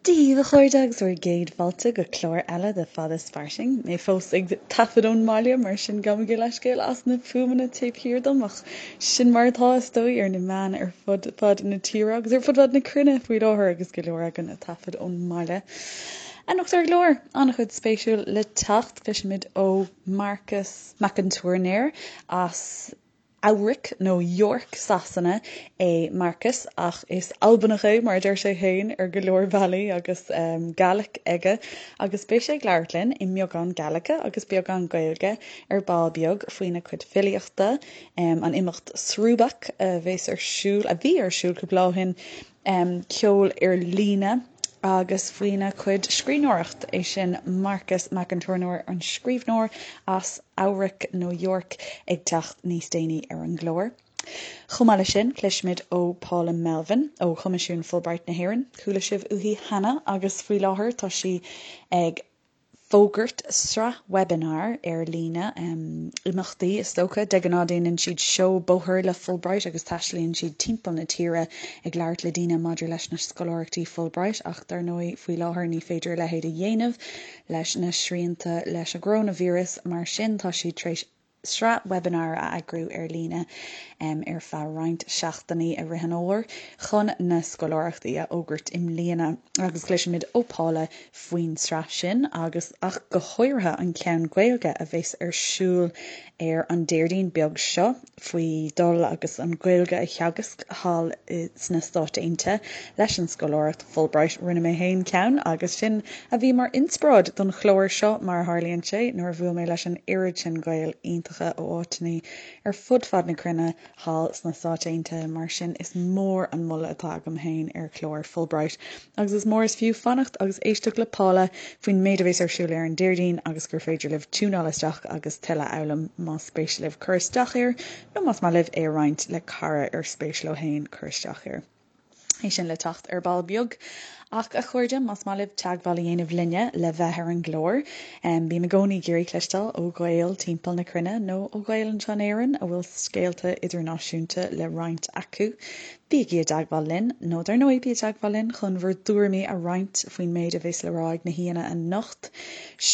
Dia daoibh a chairde agus bhur gcéad fáilte go clár eile de Fada is Fairsing. Mé fós ag taifead ón mbaile mar sin gabhaimid leithscéal as na fuaimeanna taobh thiar dom ach sin mar atá is dóigh ar na meáin ar fud fad na tíre agus ar fud fad na cruinne faoi láthair agus go leor againn ag taifead ón mbaile. Anocht ar an gclár, an-chuid spéisiúil le teacht, cloisfimid ó Marcas Mac an Tuairneir as Eabhrac nó York Sasana é Marcas ach is Albanach é mar a deir sé féin ar go leor bealaí agus Gaelic aige agus beidh sé ag labhairt linn i mbeagán Gaeilge agus beagán Gaeilge ar ball beag faoina chuid filíochta, an imeacht Srùbach a bheas ar siúl, a bhí ar siúl cúpla lá ó shin, ceol ar líne agus faoina chuid scríbhneoireacht, é sin Marcas Mac an Tuairneir, an scríbhneoir as Eabhrac nó York, ag teacht níos déanaí ar an gclár. Chomh maith leis sin, cloisfimid ó Paula Melvin ó Choimisiún Fulbright na hÉireann. Chuala sibh uaithi cheana agus faoi láthair tá sí ag fógairt sraith webinar ar líne, imeachtaí is dócha. De ghnáth déanann siad seó bóthair le Fulbright agus taistealaíonn siad timpeall na tíre ag labhairt le daoine maidir leis na scoláireachtaí Fulbright ach dar ndóigh faoi láthair ní féidir a leithéid a dhéanamh leis na srianta leis an gcoróinvíreas mar sin tá siad tar éis sraith webinar a eagrú ar líne ar feadh roinnt seachtainí i rith an fhómhair chun na scoláireachtaí a fhógairt i mbliana agus cloisfimid ó Paula faoin sraith sin agus ach go háirithe an ceann Gaeilge a bheas ar siúl ar an Déardaoin beag seo faoi dul agus an Ghaeilge a theagasc thall sna Stáit Aontaithe leis an scoláireacht Fulbright. Rinne mé féin ceann agus sin a bhí mar inspioráid don chlár seo, mar a tharlaíonn sé, nuair a bhuail mé leis an oiread sin Gaeil iontacha ó áiteanna ar fud fad na cruinne thall sna Stáit Aontaithe. Mar sin, is mór an moladh atá agam féin ar chlár Fulbright agus is mór is fiú fanacht agus éisteacht le Paula faoin méid a bheas ar siúl ar an Déardaoin agus gur féidir libh tiúnáil isteach agus tuilleadh a fhoghlaim más spéis libh cur isteach air nó más maith libh é a roinnt le cara ar spéis leo féin cur isteach air. É sin le teacht ar ball beag. Ach, a chairde, más maith libh teagmháil a dhéanamh linne le bheith ar an gclár, bím i gcónaí ag iarraidh cloisteáil ó Ghaeil timpeall na cruinne nó ó Ghaeil anseo in Éirinn a bhfuil scéalta idirnáisiúnta le roinnt acu. Bígí i dteagmháil linn, nó dar ndóigh bí i dteagmháil linn chun bhur dtuairimí a roinnt faoin méid a bheas le rá ag na haíonna anocht.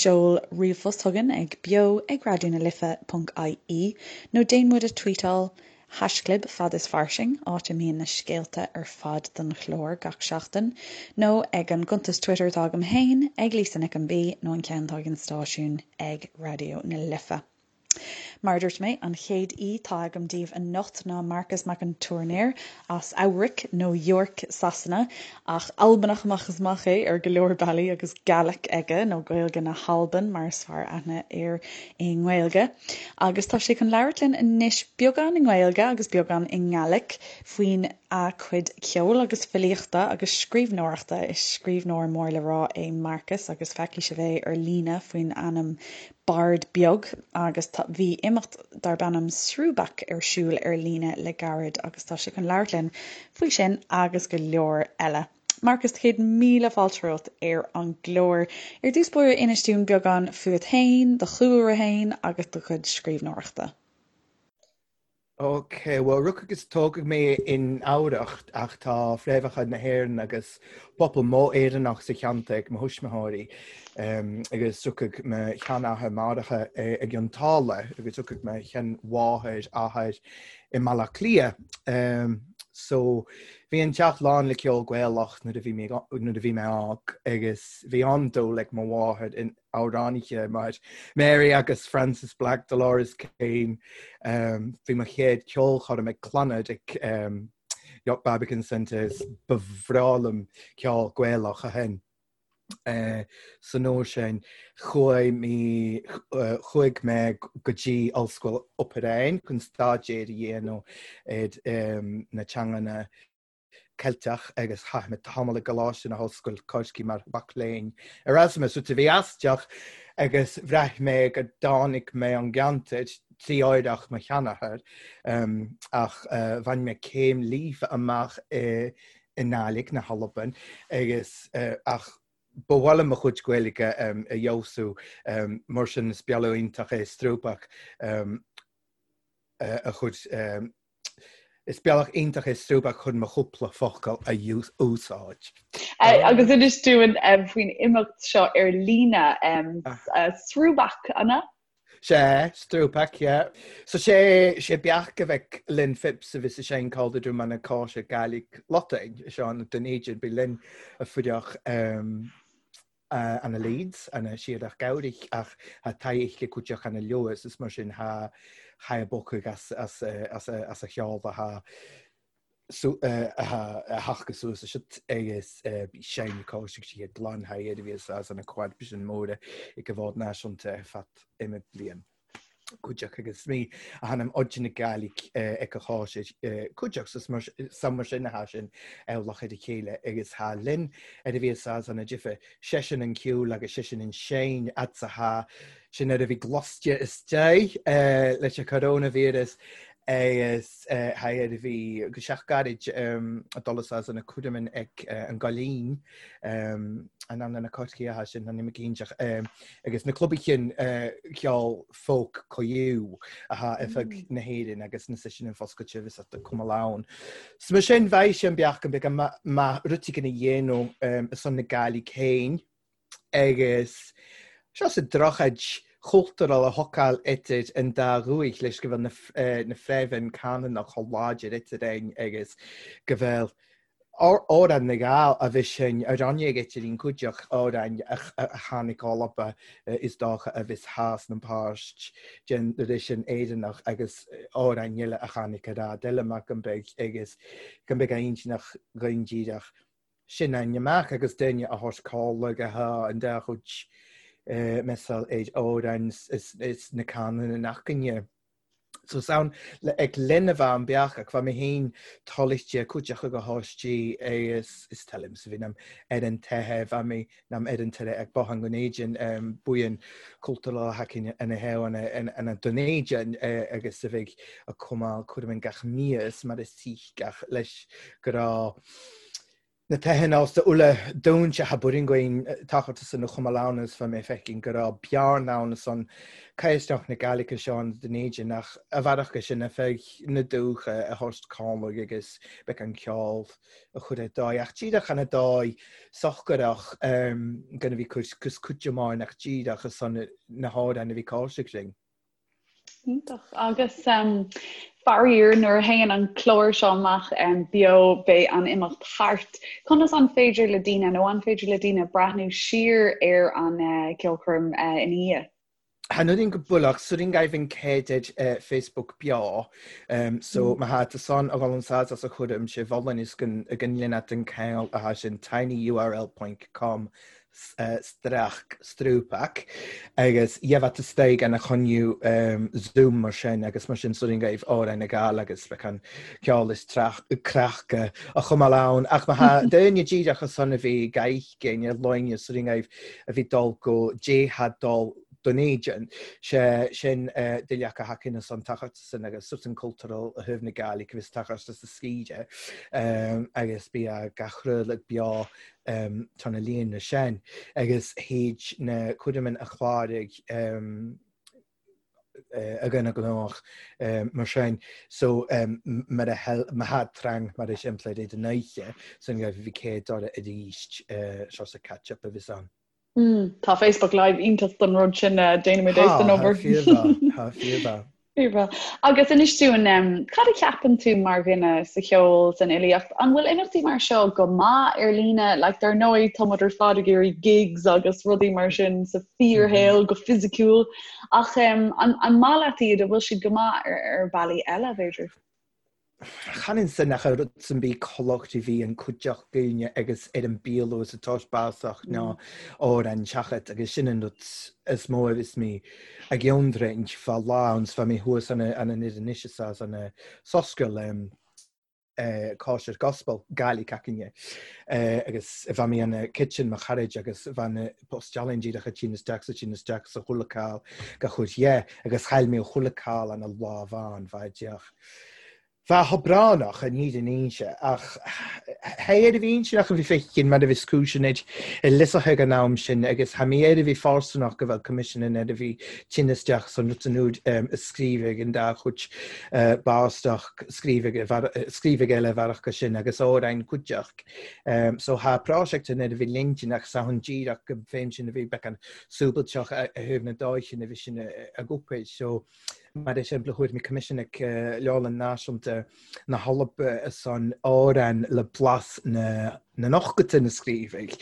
Seol ríomhphost chugainn ag beo ag raidió na life ponc ie nó déan muid a tweetáil Haischlib Fad is Fairsing, áit a mbíonn na scéalta ar fad don chlár gach seachtain, nó ag an gcuntas Twitter atá agam féin, ag Lisa Nic an B, nó an ceann atá ag an stáisiún, ag Raidió na Life. Mar a dúirt mé, an chéad aoi atá agam daoibh anocht ná Marcas Mac an Tuairneir as Eabhrac, nó York, Sasana, ach Albanach amach is amach é ar go leor bealaí agus Gaelic aige, nó Gaeilge na hAlban mar is fearr aithne air i nGaeilge. Agus tá sé chun labhairt linn anois beagán i nGaeilge agus beagán i nGaelic faoin a chuid ceoil agus filíochta agus scríbhneoireachta. Is scríbhneoir mór le rá é Marcas agus feicfidh sibh é ar líne faoin ainm Bard Beag agus tá bhí imeacht darb ainm Srùbach ar siúl ar líne le gairid agus tá sé chun labhairt linn faoi sin agus go leor eile. Marcas, 100,000 fáilte romhat ar an gclár. Ar dtús báire, inis dúinn beagán fút féin, do chúlra féin agus do chuid scríbhneoireachta. Ok, bhuel rugadh agus tógadh mé in Eabhrach ach tá fréamhacha na hÉireann agus pobal mór Éireannach sa cheantar ag mo thuismitheoirí agus rugadh mo sheanathair máithreacha i gCionn tSáile agus rugadh mo sheanmháthair athair i mBaile Átha Cliath. So bhí an teach lán le ceol Gaelach nuair a bhí mé nuair a bhí mé óg agus bhí an-dúil ag mo mháthair in amhránaithe mar Mary agus Frances Black, Dolores Keane. Bhí mo chéad ceolchoirm ag Clannad ag York Barbican Centre ba bhreá liom ceol Gaelach ó shin. San uair sin, chuaigh mé chuaigh mé go dtí Ollscoil Pepperdine chun staidéar a dhéanamh ar na teanganna Ceilteach agus chaith mé tamall i gColáiste na hOllscoile Corcaigh mar mhac léinn Erasmus, rud a bhí aisteach agus bhraith mé go dtáinig mé ón gceantar trí oidhreacht mo sheanathar ach bhain mé céim líofa amach i i nGàidhlig na hAlban agus ach ba mhaith liom mo chuid Gaeilge a fheabhsú mar sin is bealach iontach é Srùbach a chuid is bealach iontach é Srùbach chun mo chúpla focal a úsáid. Agus inis dúinn faoin imeacht seo ar líne, Srúbach, an ea? Sea, Strúpach, yeah. So sé, sé beach a bheadh Lynn Phipps a bhí sa sein called do man a cáise Gaelic Lotain, seo an den Éideann, bhí Lynn a fuireach ana Leeds, ana siadach Gabhrich ach tha taigh le cuideach ana Lewis is mar sin tha tha a bocadh as as as as a cheol tha a theacht suas is agus bhí Shane Cóisig sí ag glan thair a bhí as ana quad sin móra i gcomhad náisiúnta ar feadh ime bliain. Cuideach agus mí a thanim oide na Gaelic ag a cháis cuideach is mar san mar sin atá sin eolach ar a chéile agus thá linn ar a bhí as ana jife seisean an ceol agus seisean an Shane atsa thá sin ar a bhí gloste istigh leis an coronavirus agus thá ar a bhí go seach gairid a dul as ana cuireann ag an gCoillín an an na Corcaigh atá sin an imigínteach agus na clubaí cinn ceol folk coiú atá ar feadh na hÉireann agus na sin an foscailte bhí sa cuma ann. So mar sin bheidh sé an beach an beag maith rud éigin a dhéanamh ar son na Gaillimh féin agus seo sa drochaid chultúrtha a thógáil idir an dá dhúich leis go bhfuil na fréamhain canúnach chomh láidir idir inn agus go bhfuil Amhrán na nGall a bhí sin a rinne ag idir an cuideach amhráin a tháinig Alba is dócha a bhí theas na páirt den sin Éireannach agus amhráin eile a tháinig ar fhad eile mar go mbeidh agus go mbeidh a intinneach dhaon díreach sin an amach agus duine a thabhairt cáil go há an dá chuid measal ar amhráin is na canúna nach gcoinne. So is ann le ag linn a bheith an beach ach bheith mé féin toilite cuideach go háistí is is teilim sa bhí ar an teithe bheith mé nam ar an tire ag bothán go n-éidean buíon cultúrtha haicinn ina thaobh ina don éidean agus a bheidh a cumáil cuirim gach mias mar is teach gach leis go raibh na teitheann as uile dúinse tha buiringuin tachairt san a chuma ann is fa mé feicinn go raibh bearna ann san caisneach na Gaelice seo an den éidean ach a bhearach go sin a feadh na dúcha a thabhairt cálaigh agus beidh an ceol a chur ar dóigh ach díreach ana dóigh sochgarach gan a bhí cur cus cuid amháin ach díreach a son na hamhráin a bhí cáiseach linn. Iontach. Agus faraor, nuair a théann an clár seo amach beo, beidh an imeacht thart. Conas an féidir le daoine, nó an féidir le daoine breathnú siar ar an ceolchoirm ina dhiaidh? Chan oireann go builleach, suirin gaibh an céad ar Facebook beo, so má thá tú san a dhul an sáid as a chúram sé bholláin is go ndéanfadh an ceangal athá sin tinyurl point com streach strúpach agus gheibheadh tú istoigh ana choinniú Zoom mar sin agus mar sin suirin gaibh Amhrán na Gall agus bheadh an ceol is creachca a chumáil ann ach má thá duine díreach as san a bhí gaibh ar loinne suirin gaibh a bhí dul go dtéadh dul don éidean sé sin duilleach a thacaíonn as an tachairt san agus sort an cultural a thaobh na Gaillimhe agus tachairt as a scíde agus bí gach rud beo tá na líonra sin agus théid na cuireann a chláraigh a dhuine gnách mar sin so mar a má thá trang mar is impleid é den oíche san go bhí céad dora arís seo sa catch up a bhí ann. Tá Facebook Live iontach don rud sin déanaimid é san obair. Tá fíor Fíormhaith. Agus inis dúinn, cad a cheapann tú mar dhuine sa cheol, san fhilíocht, an bhfuil imeachtaí mar seo go maith ar líne? Like, dar ndóigh, tá muid ar fad ag iarraidh gigs agus rudaí mar sin sa fíorshaol, go fisiciúil, ach an, an maith leat iad, an bhfuil siad go maith ar, ar bhealaí eile, b'fhéidir? Chan ansin ach an rud san bí culacht a bhí an cuideach daoine agus ar an bpialú is atá básach ná amhrán seachad agus sin an rud is mó a bhíos mé ag ionroinnt fá lá ann 's fá mé thuas an an an anois is as an soscail cóisir gospel Gaelic acainne agus bha mé an kitchen mo charaid agus bha na posteálainn díreach a tinn isteach sa tinn isteach sa chuile call go chuid dhe agus chaill mé chuile call an lá bhán bha deoch. Bheadh oibránach i ndiaidh an fhoinse, ach thé ar a bhí intinneach a bhí feicthe mar a bhí cúiseanna i liosach ag an am sin agus tha mé ar a bhí fáistineach go bhfuil coimisiún ar a bhí tinn isteach san rud san úd a scríobh ag an dá chuid báisteach scríobh ag scríobh ag eile bhearach go sin agus amhráin cuideach. So tha praiseach an ar a bhí lintinneach sa an díreach go féin sin a bhí beag an súbailteach a thaobh na dóiche na bhí sin a gcúpéid. So Mar shampla, chuir mé coimisiún ag Leabharlann Náisiúnta na hAlba san amhrán le blas na n-ochtóidí na scríobhaidh.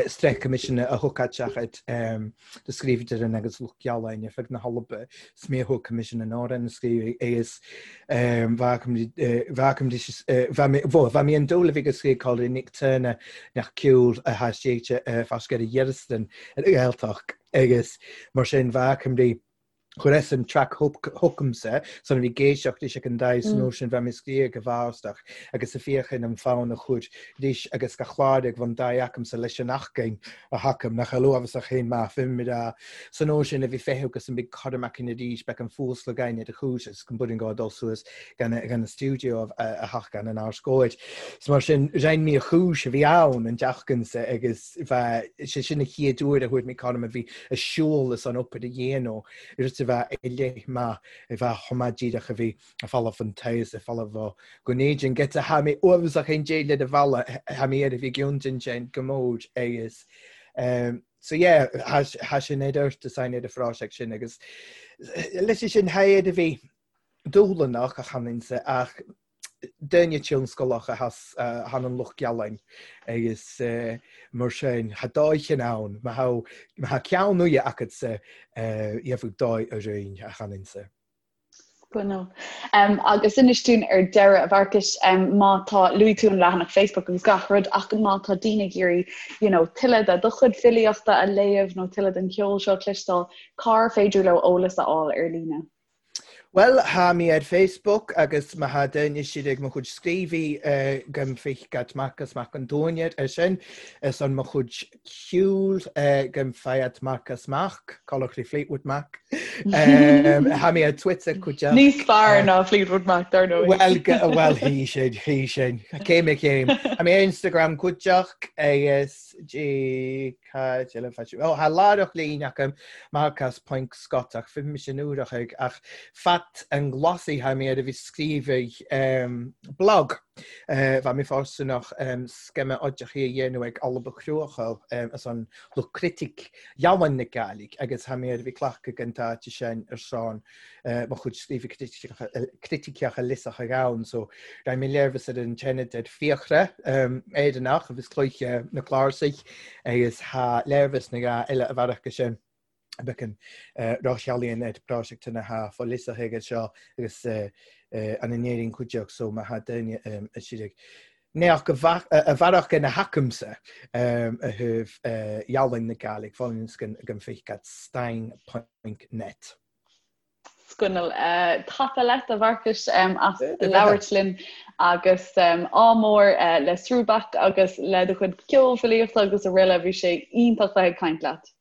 Sraith coimisiún a thug seachad do scríobhadar in agus Lucht Gealáin ar feadh na hAlba. 'S mé a thug coimisiún an amhráin na scríobhaidh agus bheadh mé an dúil a bhí ag scríobh Colin Nick Turner nach ceol a thaistéite fascadh ar Dhearastan ar Ghaeltacht. Agus mar sin bheadh Cymru chuir an track chugamsa san a bhí ag éisteacht leis ag an dtaobh san uair sin bheadh mé scríobh go bhfástach agus a féachain an fonn a chuir leis agus go chláir ag bhun dtaobh acamsa leis an achcain a thacam nach luamhasach féin maith fim rá san uair sin a bhí feitheamh agus an big cormac in arís beidh an fuasla gain ar a chúis agus go mbuaireann gá dul suas gan gan an stiúideo a theacht gan an ár scóir. So mar sin rinn mé a chúis a bhí ann an deachcansa agus bheith, sé sin an chéad uair a chuaigh mé cothrom a bhí a siúl is an obair a dhéanamh, rud a bheith i leith maith, a bheith chomh maith díreach a bhí a falamh an taos, a falamh ó go n-éideann get a tha mé uaibhreasach aon dé le do bhalla, tha mé ar a bhí gceann sin go mór agus so yeah, tha sin ar ort is ar a phráiseach sin agus leis sin tha ar a bhí dúshlánach a chanann ach duine tionscalach a than an Lucht Gealáin agus mar sin tha dóigh ann má tha ceann uaidhe acadsa gheobhaidh dóigh a roinn a chanann-sa. Sconal. Agus inis dúinn ar deireadh, a Mharcais, má tá, luaigh tú an leathanach Facebook agus gach rud ach má tá daoine ag iarraidh you know, tuilleadh de do chuid filíochta a léamh nó tuilleadh den cheol seo a chloisteáil, cár féidir leo eolas a fháil ar líne? Bhuel, tha mi ar Facebook agus má tha duine siad ag mo chuid scríobhaí gum fich at Marcas Mac an Tuairneir ar sin, is an mo chuid ceoil gum fai at Marcas Mac, colloquially Fleetwood Mac. Tha mi ar Twitter cuid Níos fearr ná Fleetwood Mac, dar ndóigh. Bhuel, bhuel, hí sin, hí sin. Céim ar chéim. Tha mi ar Instagram cuideach agus G Cad eile fá sin? Ó, tha laireach lín agam Marcas ponc Scott ach bhí mise nuair ag ach fat an nglasaí tha mé ar a bhí scríobhaidh blog. Bha mi fáistineach scéime oideachaí a dhéanamh ag Alba Cruachail as an lucht critic Dheamhan na Gàidhlig agus tha mé ar a bhí cleachtadh an t-áit sin ar son mo chuid scríobhaidh criticeacha liosach ag ann so raibh mé léirmheas ar an tseanad ar Fiachra Éireannach agus Cluiche na Cláirsigh agus tha léirmheas na gá eile a bhearach go sin becan Rochealaíon ar Praiseach na ha fá liosach aige seo agus an in Éirinn cuideach so má tha duine a siad ag Neach go a bhearach ina hacamsa a thaobh Ealaín na Gàidhlig fáilíonn gan fiche at stein ponc net. Sconal. Tapa leat, a Mharcais, as labhairt linn agus ádh mór le Srúbach agus le do chuid ceoil, filíochta agus araile. Bhí sé iontach bheith ag caint leat.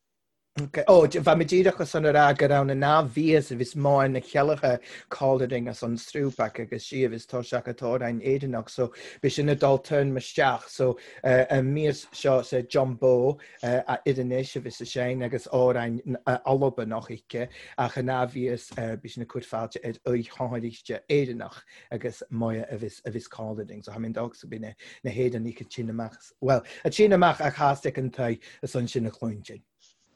Ó, bha mi dìreach ansan a ràdh gur ann an ath-mhíosa a bhis Máire na Ceilleacha callering as an Srúbach agus sí a bhis toiseach a t-amhráin Éireannach so b'é sin a dul turn isteach so an mhíos seo sa John Bow a Oireannis a bhis a sein agus amhráin Albanach aici ach an ath-mhíos bhí sin ag cur fáilte ar oigheáiriste Éireannach agus Moya a bhis a bhis callering so tha mi an dog so b'in na hÉireannaigh a tsin amach bhuel a tsin amach ach theastaigh an t-aghaidh is ansin a chluintin.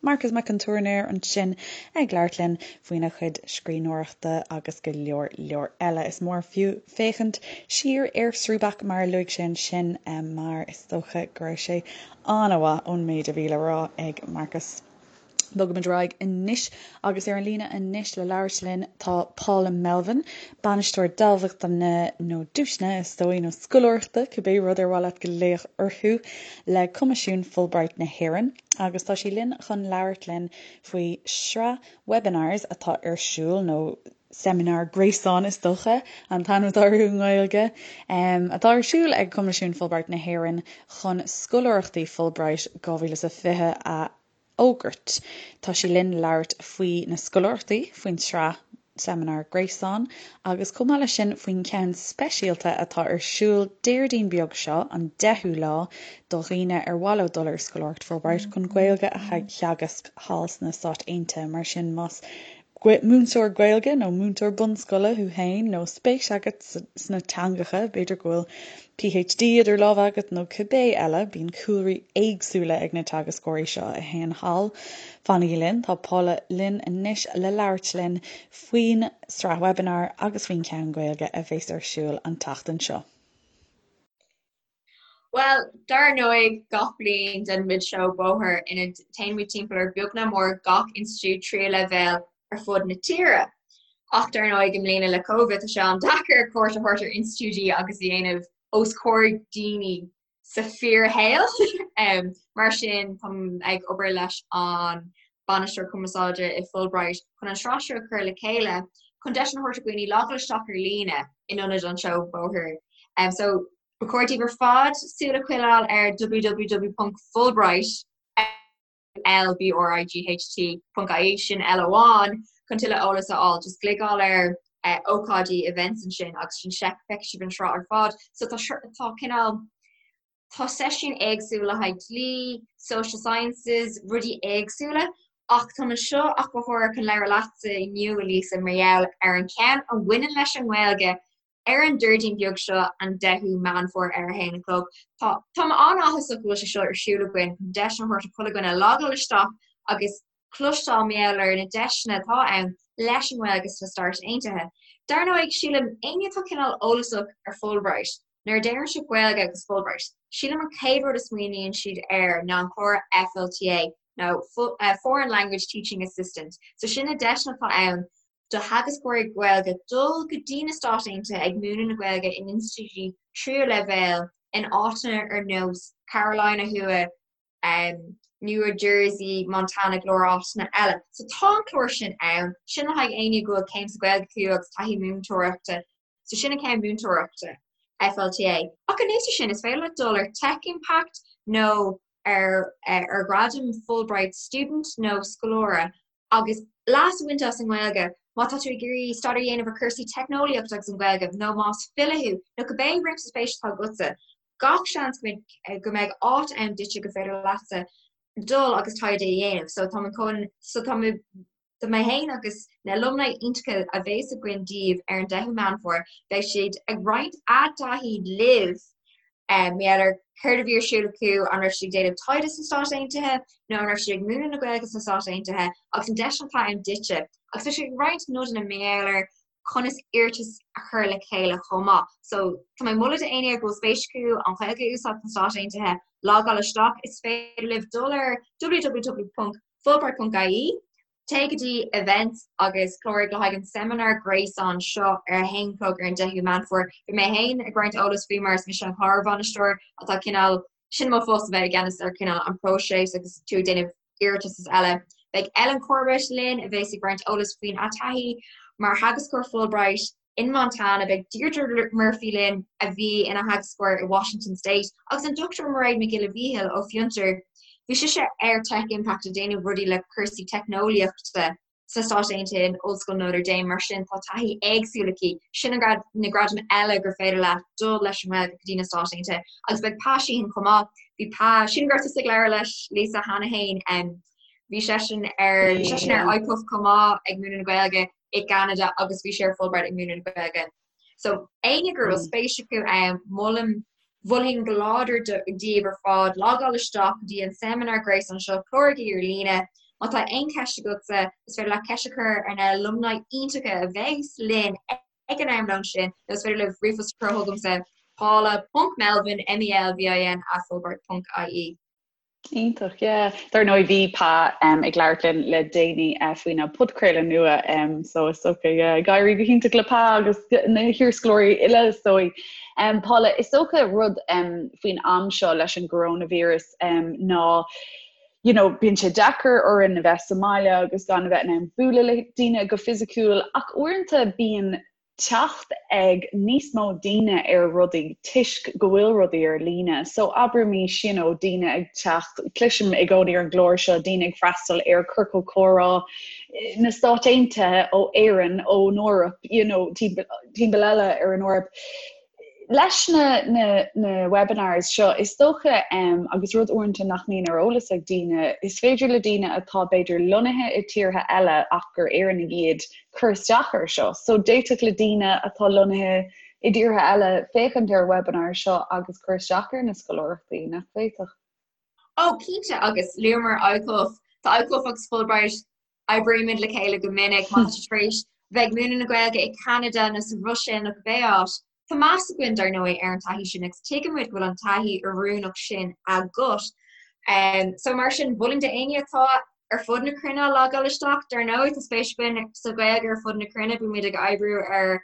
Marcas Mac an Tuairneir ansin ag labhairt linn faoina chuid scríbhneoireachta agus go leor leor eile. Is mór fiú féachaint siar ar Srúbach mar a luaigh sé ansin mar is dócha go raibh sé an-mhaith ón méid a bhí le rá ag Marcas. Bogaimid ar aghaidh anois agus ar an líne anois le labhairt linn tá Paula Melvin, Bainisteoir Dámhachtana nó Duaiseanna is dóigh, nó Scoláireachta, cibé rud ar mhaith leat glaoch orthu, le Coimisiún Fulbright na hÉireann agus tá sí linn chun labhairt linn faoi shraith webinars atá ar siúl, nó seimineár gréasáin is dócha an t-ainm atá orthu i nGaeilge, atá ar siúl ag Coimisiún Fulbright na hÉireann chun Scoláireachtaí Fulbright 2020 a fhógairt. Tá sí linn labhairt faoi na scoláireachtaí, faoin tsraith. seimineár gréasáin agus chomh maith leis sin faoin cheann speisialta atá ar siúl Déardaoin beag seo, an 10ú lá, do dhaoine ar mhaith leo dul ar scoláireacht Fulbright chun Gaeilge a theagasc thall sna Stáit Aontaithe. Mar sin más múinteoir Gaeilge nó múinteoir bunscoile thú féin nó spéis agat sna teangacha, b'fhéidir go bhfuil PhD idir lámha agat nó cibé eile, bíonn cúlraí éagsúla ag na teagascóirí seo a théann thall. Fanaigí linn, tá Paula linn anois le labhairt linn faoin sraith webinar agus faoin cheann Gaeilge a bheas ar siúl an tseachtain seo. Bhuel, dar ndóigh, gach bliain déanaimid seó bóthair ina dtéann muid timpeall ar beag nach mór gach institiúid tríú leibhéal ar fud na tíre. Ach dar ndóigh, i mbliana le Covid, tá sé an-deacair cuairt a thabhairt ar institiúidí agus a dhéanamh os comhair daoine sa fíorshaol. Mar sin, táim ag obair leis an Bainisteoir Cumarsáide i Fulbright chun an sraith seo a chur le chéile chun deis a thabhairt do dhaoine logáil isteach ar líne in ionad an seó bóthair. So, Ba chóir daoibh ar fad súil a choinneáil ar www.fulbright, F-U-L-B-R-I-G-H-T, .ie, sin L amháin, chun tuilleadh eolas a fháil. Just gliogáil ar ócáidí, events ansin agus sin feicfidh sibh an sraith ar fad. So tá tá cineál tá seisiúin éagsúla le haghaidh dlí, social sciences, rudaí éagsúla ach táim anseo ach go háirithe chun labhairt leatsa inniu, a Lisa, mar gheall ar an cheann a bhaineann leis an nGaeilge Ar an Déardaoin beag seo, an 10ú Meán Fómhair ar a haon a chlog, tá Táim an-áthasach go bhfuil sé seo ar siúl againn chun deis a thabhairt do chuile dhuine logáil isteach agus cloisteáil mar gheall ar na deiseanna atá ann leis an nGaeilge sna Stáit Aontaithe. Dar ndóigh, sílim, éinne atá cineál eolasach ar Fulbright, nuair a deireann siad Gaeilge agus Fulbright, sílim an chéad rud a smaoiníonn siad air ná an clár FLTA nó Foreign Language Teaching Assistant. So sin na deiseanna atá ann do theagascóirí Gaeilge dul go dtí na Stáit Aontaithe ag múineadh na Gaeilge in institiúidí tríú leibhéal in áiteanna ar nós Carolina Thuaidh, New Jersey, Montana, go leor áiteanna eile. So tá an clár sin ann, sin le haghaidh éinne go bhfuil céim sa Ghaeilge acu agus taithí múinteoireachta. So sin an ceann múinteoireachta, FLTA. Ach anuas air sin, is féidir leat dul ar Tech Impact nó ar ar ghradam Fulbright Student nó scoláire agus leas a bhaint as an nGaeilge má tá tú ag iarraidh staidéar a dhéanamh ar chúrsaí teicneolaíochta agus an Ghaeilge nó más file thú nó cibé réimse spéise atá agatsa, gach seans go mbeidh áit ann duitse gur féidir leatsa dul agus taighde a dhéanamh. So tá mé chun, so tá mé, tá mé féin agus na alumni iontacha a bheas againn daoibh ar an 10ú Meán Fómhair, beidh siad ag roinnt a dtaithí libh Mar gheall ar céard a bhí ar siúl acu, an raibh siad ag déanamh taighde sna Stáit Aontaithe nó an raibh siad ag múineadh na Gaeilge sna Stáit Aontaithe agus an deis atá ann duitse. Agus tá siad ag roinnt nodanna mar gheall ar conas iarratas a chur le chéile chomh maith. So tá mé ag moladh d'éinne go bhfuil spéis acu an Ghaeilge a úsáid sna Stáit Aontaithe, logáil isteach. Is féidir libh dul ar www.fulbright.ie Téigh go dtí Events agus cláraigh le haghaidh an seimineár gréasáin seo ar a haon chlog ar an 10ú Meán Fómhair. Beidh mé féin ag roinnt eolas faoi mar is mise an clár-bhainisteoir atá cineál, sin mo phost a bheith i gceannas ar cineál an próiseas agus tú ag déanamh iarratas is eile. Beidh Ellen Corbett linn a bheas ag roinnt eolas faoina taithí mar theagascóir Fulbright. In Montana, beidh Deirdre Murphy linn, a bhí ina theagascóir i Washington State, agus an Dr Mairéad Mac Giolla Mhíchíl ó Fiontar. Bhí sise ar Tech Impact ag déanamh rudaí le cúrsaí teicneolaíochta sna Stáit Aontaithe in Ollscoil Notre Dame, mar sin tá taithí éagsúil aici. Sin na gradaim eile gur féidir leat dul leis an nGaeilge go dtí na Stáit Aontaithe. Agus beidh Pa Sheehan chomh maith. Bhí Pa, sílim go raibh tusa ag labhairt leis, Lisa, cheana féin. Bhí seisean ar, bhí seisean ar ICUF chomh maith ag múineadh na Gaeilge. i gCeanada agus bhí sé ar Fulbright ag múineadh na Gaeilge. So éinne go bhfuil spéis acu ann, molaim, mholfainn go láidir daoibh ar fad logáil isteach go dtí an seimineár gréasáin seo, cláraigí ar líne. Má tá aon cheist agatsa, is féidir leat ceist a chur ar na alumni iontacha a bheas linn ag an am lóin sin, nó is féidir libh ríomhphost a chur chugamsa, paula.melvin, M-E-L-V-I-N, at fulbright.ie. Iontach, yeah. Dar ndóigh bhí Pa ag labhairt linn le déanaí faoina podchraoladh nua so is dócha yeah, ag éirí go hiontach le Pa agus na hiarscoláirí uile is dóigh. Paula, is dócha rud faoin am seo leis an gcoronavirus ná you know, bíonn sé deacair orainn a bheith sa mbaile agus gan a bheith in ann bualadh le daoine go fisiciúil ach uaireanta bíonn. teacht ag níos mó daoine ar rudaí toisc go bhfuil rudaí ar líne. So abraimís you know daoine ag teacht, cloisim i gcónaí ar an gclár seo daoine ag freastal ar ciorcal comhrá na Stáit Aontaithe ó Éirinn, ón Eoraip, you know timpeall eile ar an Eoraip. Leis na na na webinars seo, is dócha, agus rud uaireanta nach mbíonn ar eolas ag daoine, is féidir le daoine atá b'fhéidir lonnaithe i tíortha eile ach gur Éireannaigh iad cur isteach air seo. So d'fhéadfadh le daoine atá lonnaithe i dtíortha eile féachaint ar webinar seo agus cur isteach ar na scoláireachtaí, nach bhféadfadh? Ó, cinnte, agus luamar ICUF, tá ICUF agus Fulbright Oibrímid le chéile go minic má tá tú tar éis bheith ag múineadh na Gaeilge i Ceanada nó sa Bhruiséil nó cibé áit. Tá meas againn, dar ndóigh, ar an taithí sin agus tuigimid go bhfuil an taithí oiriúnach sin agat. So mar sin, mholfainn d'éinne atá ar fud na cruinne logáil isteach. Dar ndóigh, tá spéis againn sa Ghaeilge ar fud na cruinne, bímid ag oibriú ar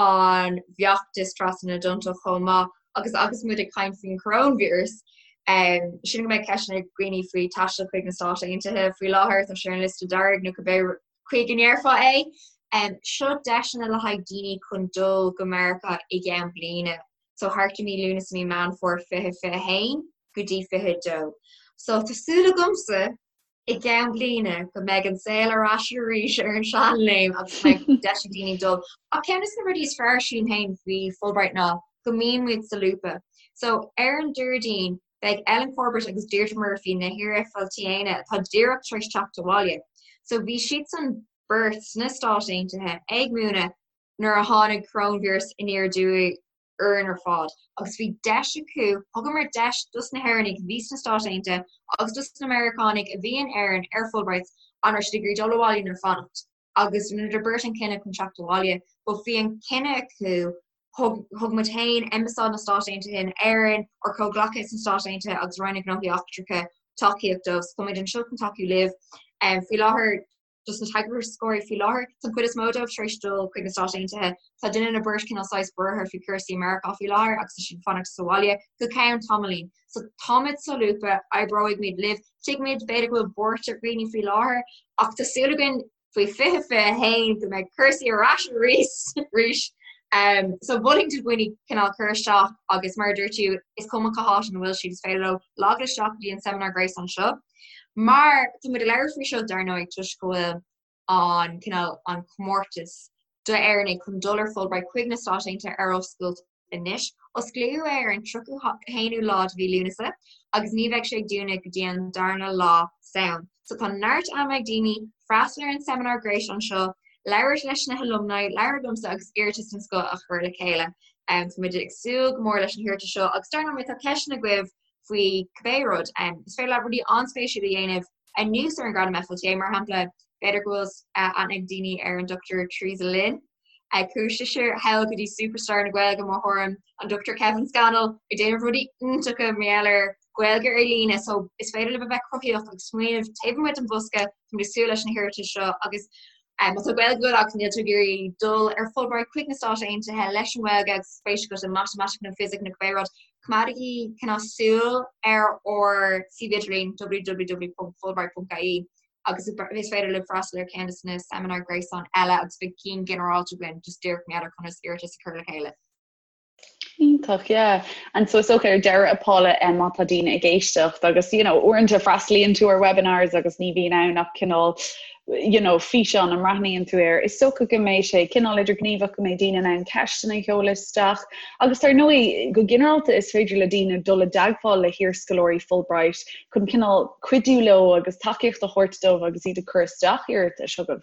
an bhfeachtas trasna na dtonnta chomh maith agus agus muid ag caint faoin choróinvíreas, sin go mbeidh ceisteanna ag daoine faoi taisteal chuig na Stáit Aontaithe faoi láthair, tá sé ar an liosta dearg nó cibé chaoi go ndéarfá é. Seo deiseanna le haghaidh daoine chun dul go Meiriceá i gceann bliana, so thart i mí Lúnasa, mí Meán Fómhair 2021 go dtí 22. So tá súil agamsa i gceann bliana go mbeidh an saol ar ais arís ar an seanléim agus go mbeidh deis ag daoine dul. Ach ceann de na rudaí is fearr sílim féin faoi Fulbright ná go mbíonn muid solúbtha. So ar an Déardaoin beidh Ellen Corbett agus Deirdre Murphy, na hiar-FLTAnna atá díreach tar éis teacht abhaile. So bhí siadsan beirt sna Stáit Aontaithe ag múineadh nuair a tháinig coróinvíreas aniar aduaidh orainn ar fad agus bhí deis acu, thugamar deis dos na hÉireannaigh a bhí sna Stáit Aontaithe agus dos na Meiriceánaigh a bhí in Éirinn ar Fulbrights an raibh siad ag iarraidh dul abhaile nó fanacht agus rinneadar beirt an cinneadh chun teacht abhaile but bhí an cinneadh acu thug thug muid féin Ambasáid na Stáit Aontaithe in Éirinn ár comhghleacaithe sna Stáit Aontaithe agus Roinn na Gnóthaí Eachtracha tacaíocht dóibh so tá muid anseo chun tacú libh faoi láthair dos na teagascóirí faoi láthair. Tá an chuid is mó dóibh tar éis dul chuig na Stáit Aontaithe. Tá duine nó beirt cineál saghas buartha faoi cúrsaí i Meiriceá faoi láthair agus tá siad ag fanacht sa bhaile go ceann tamaillín. So táimid solúbtha, oibreoidh libh. Tuigimid b'fhéidir go bhfuil buairt ar dhaoine faoi láthair ach tá súil againn faoi 2021 go mbeidh cúrsaí ar ais arís arís. Um, so mholfainn do dhaoine cineál cur isteach agus mar a dúirt tú is cuma cá háit ina bhfuil siad is féidir leo logáil isteach go dtí an seimineár gréasáin seo. Mar tá muid ag labhairt faoi seo dar ndóigh toisc go bhfuil an cineál an comórtas d'Éireannaigh chun dul ar Fulbright chuig na Stáit Aontaithe ar oscailt anois. Osclaíodh é ar an 31ú lá de mhí Lúnasa agus ní bheidh sé ag dúnadh go dtí an darna lá Samhain. So tá neart ama ag daoine freastal ar an seimineár gréasáin seo, labhairt leis na halumni, labhairt liomsa agus iarratas den scoth a chur le chéile. Tá muid ag súil go mór leis na hiarratais seo agus dar ndóigh má tá ceisteanna agaibh faoi cibé rud. Is féidir leat rudaí an-spéisiúla a dhéanamh anuas ar an Ghradam FLTA, mar shampla, b'fhéidir go bhfuil aithne ag daoine ar an Dr Theresa Lynn. Chuaigh sise thall go dtí superstar na Gaeilge, mo thuairim, an Dr Kevin Scannell, ag déanamh rudaí iontacha mar gheall ar Ghaeilge ar líne, so is féidir libh a bheith cruthaitheach agus smaoineamh taobh amuigh den bhosca, táimid ag súil leis na hiarratais seo agus Má tá Gaeilge agat agus níl tú ag iarraidh dul ar Fulbright chuig na Stáit Aontaithe leis an nGaeilge agus spéis agat i matamaitic nó fisic nó cibé rud, coimeádaigí cineál súil ar ár suíomh idirlín www.fulbright.ie agus is féidir libh freastal ar ceann de na seimineáir gréasáin eile agus beidh cinn ginearálta againn just díreach mar gheall ar conas iarratas a chur le chéile. Iontach, yeah. And so is dócha ar deireadh a Paula eh, má tá daoine ag éisteacht agus you know, uaireanta freastalaíonn tú ar webinars agus ní bhíonn ann ach cineál you know, físeán a mbreathnaíonn tú air. Is dócha go mbeidh sé cineál idirghníomhach go mbeidh daoine in ann ceisteanna a sheoladh isteach agus dar ndóigh go ginearálta is féidir le daoine dul i dteagmháil le hiarscoláirí Fulbright chun cineál cuidiú leo agus tacaíocht a thabhairt dóibh agus iad ag cur isteach iarratais chugaibh.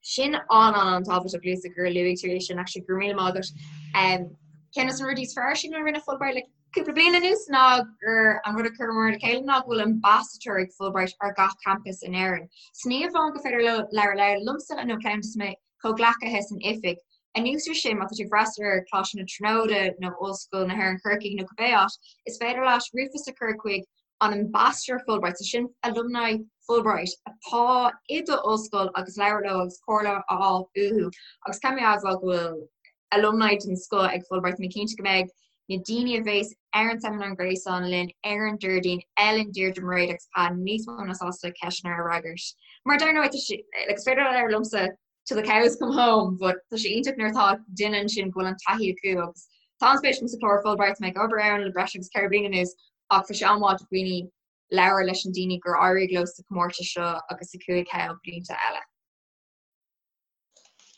Sin an-an-an-tábhachtach Lisa gur luaigh tú é sin actually go raibh míle maith agat. Um, ceann de na rudaí is fearr sin a rinne Fulbright le cúpla bliain anuas ná gur an rud a chuireamar le chéile ná go bhfuil ambasadóir ag Fulbright ar gach campus in Éirinn. So ní amháin gur féidir leo labhairt liomsa nó ceann de mo chomhghleacaithe san oifig. Anuas ar sin, má tá tú ag freastal ar Choláiste na Tríonóide nó Ollscoil na hÉireann Corcaigh nó cibé áit, is féidir leat ríomhphost a chur chuig an Ambassador Fulbright, so sin alumni Fulbright atá i do ollscoil agus labhairt leo agus comhairle a fháil uathu. Agus caithfidh mé a admháil go bhfuil alumni den scoth ag Fulbright, tá mé cinnte go mbeidh na daoine a bheas ar an seimineár gréasáin linn ar an Déardaoin, Ellen, Deirdre, Mairéad agus Pa níos mó ná sásta ceisteanna a fhreagairt. Mar dar ndóigh, tá sé, like, is féidir labhairt liomsa. till the cows come home, but tá sé iontach nuair atá duine ansin go bhfuil an taithí acu agus tá an-spéis agam sa chlár Fulbright, tá mé ag obair ann le breis agus 4 bliana anuas ach tá sé an-mhaith do dhaoine labhairt leis an daoine gur éirigh leo sa chomórtas seo agus sa 5 thall blianta eile.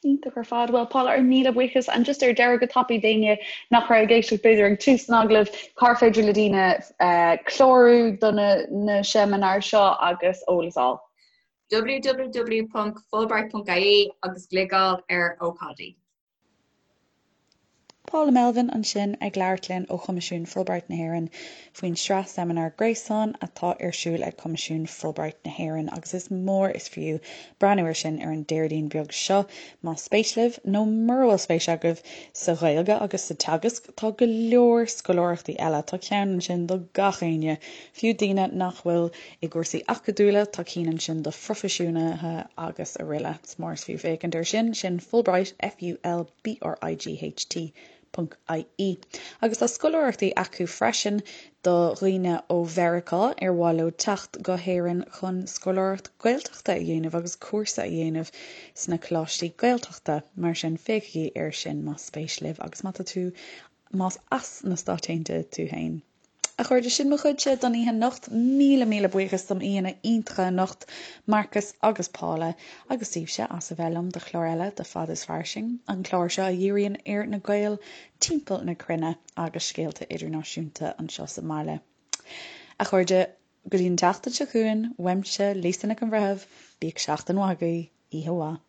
Iontach ar fad. Bhuel, Paula, ár míle buíochas. And just ar deireadh go tapaidh d'éinne nach raibh ag éisteacht b'fhéidir ag tús an agallaimh, cár féidir le daoine clárú do na seimineáir seo agus eolas a fháil? www.fulbright.ie agus gliogáil ar ócáidí. Paula Melvin ansin ag labhairt linn ó Choimisiún Fulbright na hÉireann faoin sraith seimineár gréasáin atá ar siúl ag Coimisiún Fulbright na hÉireann agus is mór is fiú breathnú air sin ar an Déardaoin beag seo más spéis libh, nó mura bhfuil spéis agaibh sa Ghaeilge agus sa teagasc, tá go leor scoláireachtaí eile, tá ceann ansin do gach éinne, fiú daoine nach bhfuil i gcúrsaí acadúla, tá cinn ansin do phroifisiúnaithe agus aroile. Is mór is fiú féachaint air sin, sin Fulbright, F-U-L-B-R-I-G-H-T, ponc I-E. Agus tá scoláireachtaí acu freisin do dhaoine ó Mheiriceá ar mhaith leo teacht go hÉirinn chun scoláireacht Gaeltachta a dhéanamh agus cúrsa a dhéanamh sna coláistí Gaeltachta. Mar sin, féachaigí air sin más spéis libh agus má tá tú, más as na Stáit Aontaithe tú féin. A chairde, sin mo chuidse don oíche anocht. Míle míle buíochas dom aíonna iontacha anocht, Marcus agus Paula, agus daoibhse as a bheith liom do chlár eile de Fad is Fairsing, an clár seo a dhíríonn ar na Gaeil timpeall na cruinne agus scéalta idirnáisiúnta anseo sa mbaile. A chairde, go dtí an tseachtain seo chugainn, uaimse, Lisa Nic an Bhreithimh, bíodh seachtain mhaith agaibh, oíche mhaith.